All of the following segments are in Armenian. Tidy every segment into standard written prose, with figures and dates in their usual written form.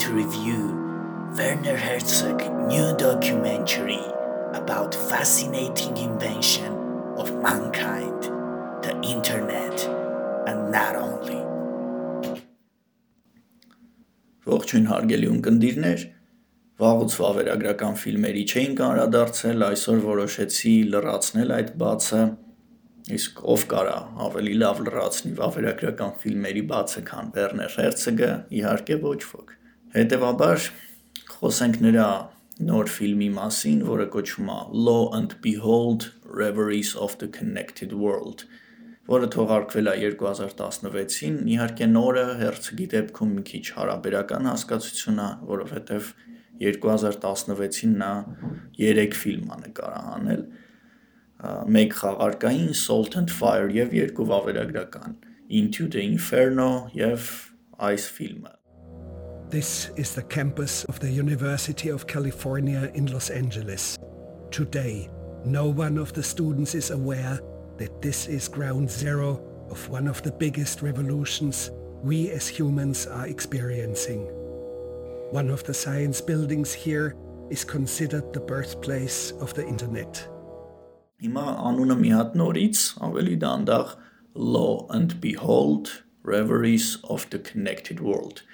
to review Werner Herzog new documentary about fascinating invention of mankind, the internet, and not only. Ողջույն հարգելի ունկնդիրներ, վաղուց վավերագրական ֆիլմերի չէինք անդրադարձել, այսօր որոշեցի լրացնել այդ բացը, իսկ ով կարա ավելի լավ լրացնի վավերագրական ֆիլմերի բացը, քան Werner Herzog-ը, իհարկե ոչ ոք։ Հետևաբար խոսենք նրա նոր ֆիլմի մասին, որը կոչվում է Lo and Behold, Reveries of the Connected World, որը թողարկվել է 2016-ին, իհարկե նորը Herzog-ի դեպքում մի քիչ հարաբերական հասկացություն է, որովհետև 2016-ին նա 3 ֆիլմ է նկարահանել, մեկ խաղարկային Salt and Fire և 2 վավերագրական Into the Inferno և այս ֆիլմը։ This is the campus of the University of California in Los Angeles. Today, no one of the students is aware that this is ground zero of one of the biggest revolutions we as humans are experiencing. One of the science buildings here is considered the birthplace of the internet. Հիմա անունը մի հատ նորից, ավելի դանդաղ Lo and Behold, Reveries of the Connected World.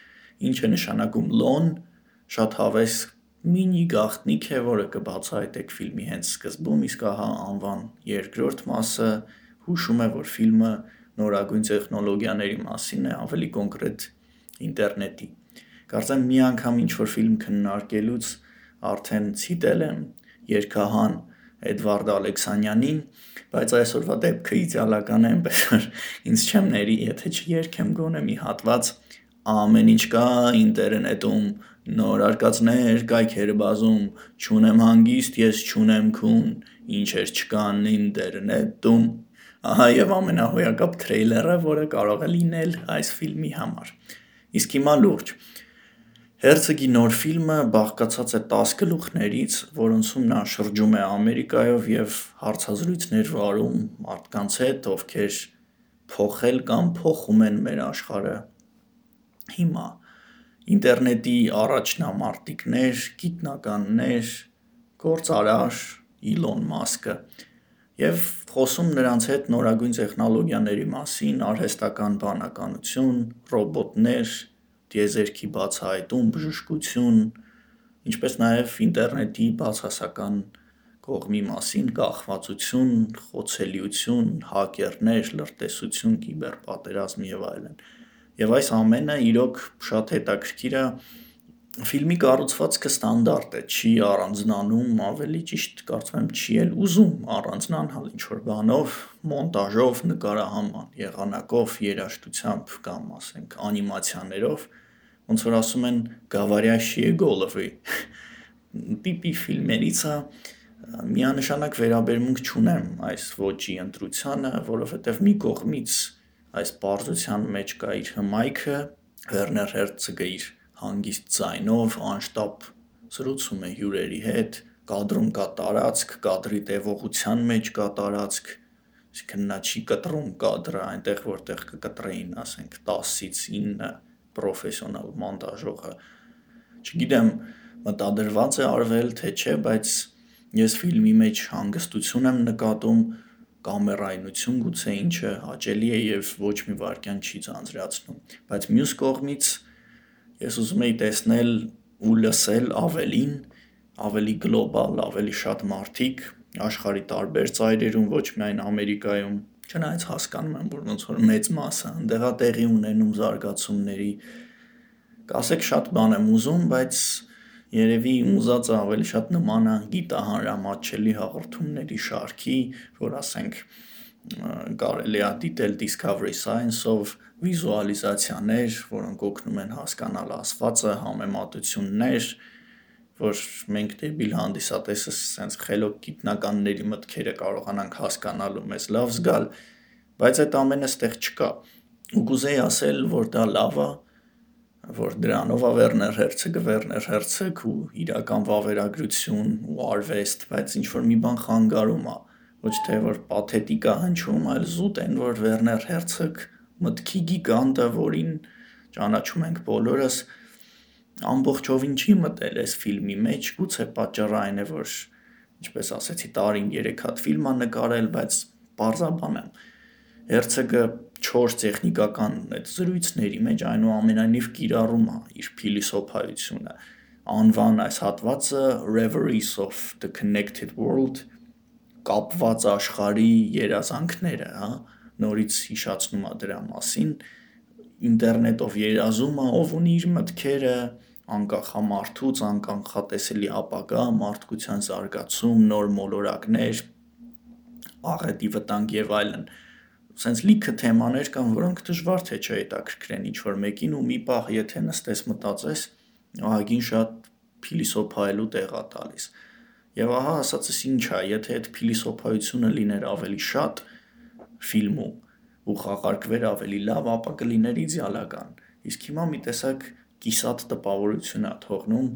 Ինչ է նշանակում Lo-ն, շատ հավես մինի գաղտնիք է, որը կբացահայտեք ֆիլմի հենց սկզբում, իսկ ահա անվան երկրորդ մասը հուշում է, որ ֆիլմը նորագույն տեխնոլոգիաների մասին է, ավելի կոնկրետ ինտերնետի։ Կարծեմ մի անգամ ինչ-որ ֆիլմ քննարկելուց արդեն ցիտել եմ երգահան Էդվարդ Ալեքսանյանին, բայց այսօրվա դեպքը իդեալական է, այնպես որ ինձ չեմ ների, եթե չերգեմ գոնե մի հատված ամեն ինչ կա ինտերնետում, նոր արկածներ, կայքեր բազում, չունեմ հանգիստ, ես չունեմ քուն, ինչեր չկան ինտերնետում։ Ահա եւ ամենահոյակապ թրեյլերը, որը կարող է լինել այս ֆիլմի համար։ Իսկ հիմա լուրջ։ Herzog-ի նոր ֆիլմը բաղկացած է 10 գլուխներից, որոնցում նա շրջում է Ամերիկայով եւ հարցազրույցներ վարում մարդկանց հետ, ովքեր փոխել կամ փոխում են մեր աշխարհը։ Հիմա ինտերնետի առաջնամարտիկներ, գիտնականներ, գործարար Իլոն Մասկը եւ խոսում նրանց հետ նորագույն տեխնոլոգիաների մասին, արհեստական բանականություն, ռոբոտներ, դիեզերքի բացահայտում, բժշկություն, ինչպես նաև ինտերնետի բացասական կողմի մասին, կախվածություն, խոցելիություն, հակերներ, լրտեսություն, կիբերպատերազմ եւ այլն։ Եվ այս ամենը իրոք շատ հետաքրքիր է, ֆիլմի կառուցվածքը ստանդարտ է, չի առանձնանում, ավելի ճիշտ կարծում եմ չի էլ ուզում առանձնանալ ինչ-որ բանով, մոնտաժով, նկարահանման, եղանակով, երաժշտությամբ կամ ասենք անիմացիաներով, ոնց որ ասում են գավարյաշի գոլովի տիպի ֆիլմերից է, միանշանակ վերաբերմունք չունեմ այս ոճի ընտրությանը, որովհետև մի կողմից այս պարզության մեջ կա իր հմայքը, Werner Herzog-ը իր հանգիստ ձայնով անշտապ զրուցում է հյուրերի հետ, կադրում կա տարածք, կադրի տևողության մեջ կա տարածք, այսինքն նա չի կտրում կադրը այնտեղ, որտեղ կկտրեին, ասենք 10-ից 9 պրոֆեսիոնալ մոնտաժողը։ Չգիտեմ, մտադրված է արվել, թե չէ, բայց ես ֆիլմի մեջ հանգստություն եմ նկատում, կամերայնություն գուցե ինչը հաճելի է եւ ոչ մի վարքյան չի ձանձրացնում, բայց մյուս կողմից ես ուզում եի տեսնել ու լսել ավելին, ավելի գլոբալ, ավելի շատ մարդիկ աշխարհի տարբեր ծայրերում, ոչ միայն Ամերիկայում, չնայած հասկանում եմ, որ ոնց որ մեծ մասը այնտեղ է տեղի ունենում զարգացումների, կասեք շատ բան եմ ուզում, բայց երևի ուզածը ավելի շատ նման է գիտահանրամատչելի հաղորդումների շարքի, որ ասենք կարելի է դիտել Discovery Science-ով վիզուալիզացիաներ, որոնք օգնում են հասկանալ ասվածը, համեմատություններ, որ մենք դեպի հանդիսատեսը սենց խելոք գիտնականների մտքերը կարողանանք հասկանալ ու մեզ լավ զգալ, բայց այդ ամենը ստեղ չկա։ Ու կուզեի ասել, որ դա լավ է, որ դրանով է Werner Herzog ու իրական վավերագրություն ու արվեստ, բայց ինչ-որ մի բան խանգարում է, ոչ թե որ պաթետիկ է հնչում, այլ զուտ են, որ Werner Herzog մտքի գիգանտը, որին ճանաչում ենք բոլորս, ամբողջովին չի մտել այս ֆիլմի մեջ, գուցե պատճառը այն է, որ ինչպես ասեցի, տարին 3 հատ ֆիլմ ա նկարել, բայց պարզաբան եմ։ Հերցեգը 4 տեխնիկական այդ զրույցների մեջ այնուամենայնիվ կիրառում է իր փիլիսոփայությունը։ Անվան այս հատվածը Reveries of the Connected World, կապված աշխարհի երազանքները, նորից հիշացնում է դրա մասին, ինտերնետով երազում է, ով ունի իր մտքերը, անկախ է մարդուց, անկանխատեսելի ապագա, մարդկության զարգացում, նոր մոլորակներ, աղետի վտանգ եւ այլն։ Սենց լիքը թեմաներ կան, որոնք դժվար թե չհետաքրքրեն ինչ-որ մեկին ու մի պահ եթե նստես մտածես, ահագին շատ փիլիսոփայելու տեղ է տալիս։ Եվ ահա ասածս ինչ է, եթե այդ փիլիսոփայությունը լիներ ավելի շատ ֆիլմում ու խաղարկվեր ավելի լավ, ապա կլիներ իդեալական։ Իսկ հիմա մի տեսակ կիսատ տպավորություն է թողնում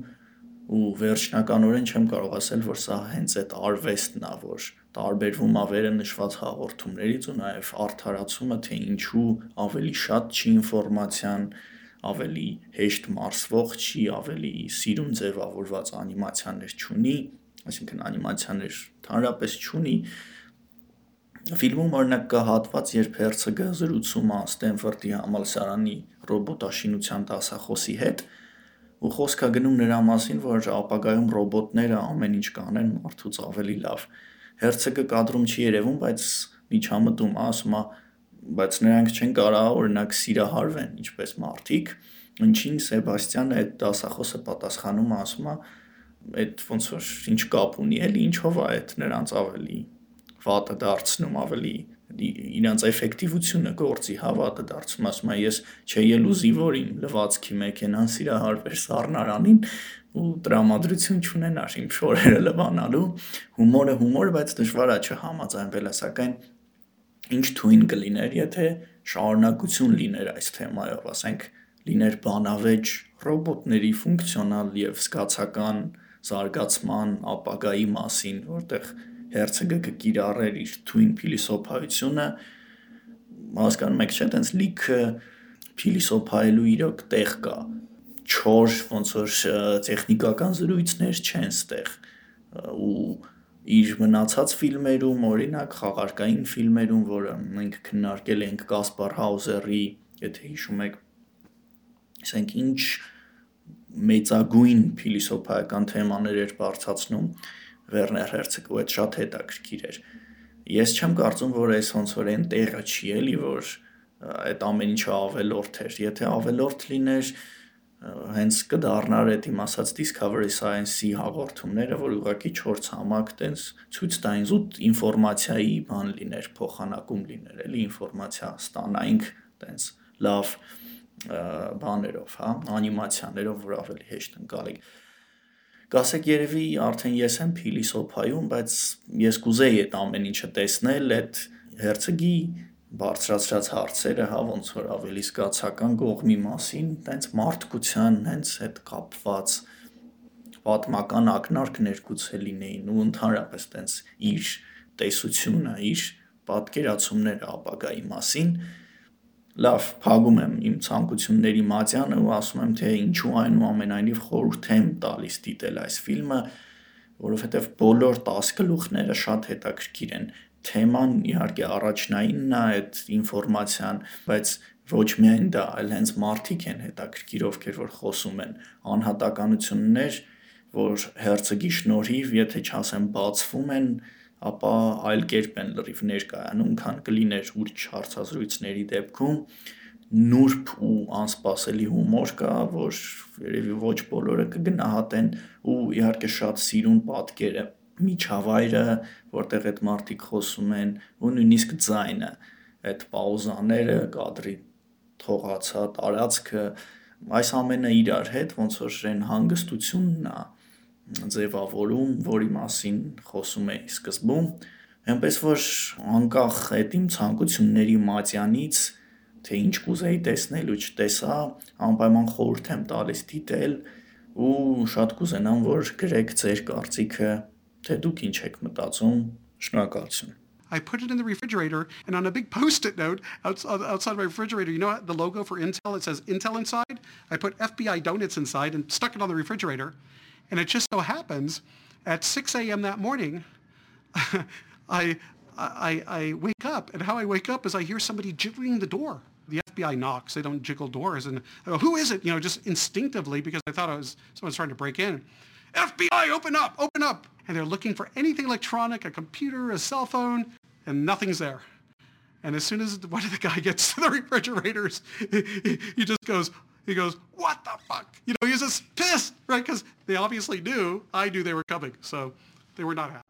ու վերջնականորեն չեմ կարող ասել, որ սա հենց այդ արվեստն է, որ տարբերվում է վերը նշված հաղորդումներից ու նաև արդարացումը, թե ինչու ավելի շատ չի ինֆորմացիան, ավելի հեշտ մարսվող չի, ավելի սիրուն ձևավորված անիմացիաներ չունի, այսինքն անիմացիաներ ընդհանրապես չունի։ Ֆիլմում օրինակ կա հատված, երբ Հերցեգը զրուցում է Ստենֆորդի համալսարանի ռոբոտաշինության դասախոսի հետ ու խոսք է գնում նրա մասին, որ ապագայում ռոբոտները ամեն ինչ կանեն մարդուց ավելի լավ։ Հերցեգը կադրում չի երևում, բայց միջամտում է, ասում է, բայց նրանք չեն կարող օրինակ սիրահարվեն, ինչպես մարդիկ, ինչին Սեբաստյանը այդ դասախոսը պատասխանում է, ասում է, այդ ոնց որ ինչ կապ ունի, էլի ինչով է այդ նրանց ավելի վատը դարձնում, ավելի իրանց էֆեկտիվությունը գործի հավատը դարձում, ասում է, ես չէի ուզի, որ իմ լվացքի մեքենան սիրահարվեր սառնարանին ու տրամադրություն չունենար իմ շորերը լվանալու, հումորը հումոր, բայց դժվար է չհամաձայնվելը, սակայն ինչ թույն կլիներ, եթե շարունակություն լիներ այս թեմայով, ասենք լիներ բանավեճ ռոբոտների ֆունկցիոնալ եւ զգացական զարգացման ապագայի մասին, որտեղ Հերցեգը կկիրառեր իր թույն փիլիսոփայությունը, հասկանում եք, չէ՞, տենց լիքը փիլիսոփայելու իրոք տեղ կա, չոր ոնց որ տեխնիկական զրույցներ չեն ստեղ ու իր մնացած ֆիլմերում, օրինակ խաղարկային ֆիլմերում, որը մենք քննարկել ենք Կասպար Հաուզերի, եթե հիշում եք, ասենք ինչ մեծագույն փիլիսոփայական թեմաներ էր բարձրացնում Վերներ Հերցեգը, ու այդ շատ հետաքրքիր էր։ Ես չեմ կարծում, որ այս ոնց որ այն տեղը չի էլի, որ այդ ամեն ինչը ավելորդ էր։ Եթե ավելորդ լիներ, հենց կդառնար այդ իմ ասած Discovery Science-ի հաղորդումները, որ ուղղակի 4 ցամաք տենց ցույց տային զուտ ինֆորմացիայի բան լիներ, փոխանակում լիներ, էլի ինֆորմացիա ստանայինք տենց լավ բաներով, հա, անիմացիաներով, որ ավելի հեշտ ընկալենք։ Կասեք երևի արդեն ես եմ փիլիսոփայում, բայց ես կուզեի այդ ամեն ինչը տեսնել, այդ Հերցեգի բարձրացրած հարցերը, հա, ոնց որ ավելի զգացական կողմի մասին, տենց մարդկության հենց հետ կապված պատմական ակնարկներ գուցե լինեին ու ընդհանրապես տենց իր տեսությունը, իր պատկերացումները ապագայի մասին։ Լավ, փակում եմ իմ ցանկությունների մատյանը ու ասում եմ, թե ինչու այնուամենայնիվ խորհուրդ եմ տալիս դիտել այս ֆիլմը, որովհետև բոլոր 10 գլուխները շատ հետաքրքիր են։ Թեման իհարկե առաջնայինն է այդ ինֆորմացիան, բայց ոչ միայն դա, այլ հենց մարդիկ են հետաքրքիր, ովքեր որ խոսում են, անհատականություններ, որ Հերցեգի շնորհիվ, եթե չասեմ բացվում են, ապա այլ կերպ են լրիվ ներկայանում, քան կլիներ ուրիշ հարցազրույցների դեպքում, նուրբ ու անսպասելի հումոր կա, որ երևի ոչ բոլորը կգնահատեն ու իհարկե շատ սիրուն պատկերը, միջավայրը, որտեղ այդ մարդիկ խոսում են ու նույնիսկ ձայնը, այդ պաուզաները, կադրի թողացա տարածքը, այս ամենը իրար հետ ոնց որ այն հանգստությունն է ձևավորում, որի մասին խոսում էի սկզբում, այնպես որ անկախ այդ իմ ցանկությունների մատյանից, թե ինչ կուզեի տեսնել ու չտեսա, անպայման խորհուրդ եմ տալիս դիտել ու շատ կուզենամ, որ գրեք ձեր կարծիքը, թե դուք ինչ եք մտածում, շնորհակալություն։ I put it in the refrigerator, and on a big Post-it note outside my refrigerator, you know the logo for Intel? It says Intel inside. I put FBI donuts inside and stuck it on the refrigerator. And it just so happens, at 6 a.m. that morning, I wake up, and how I wake up is I hear somebody jiggling the door. The FBI knocks. They don't jiggle doors. And I go, who is it? Just instinctively, because I thought someone's trying to break in. FBI, open up, open up. And they're looking for anything electronic, a computer, a cell phone, and nothing's there. And as soon as one of the guy gets to the refrigerators, he goes, what the fuck? He's just pissed, right? Because they obviously knew, I knew they were coming. So they were not happy.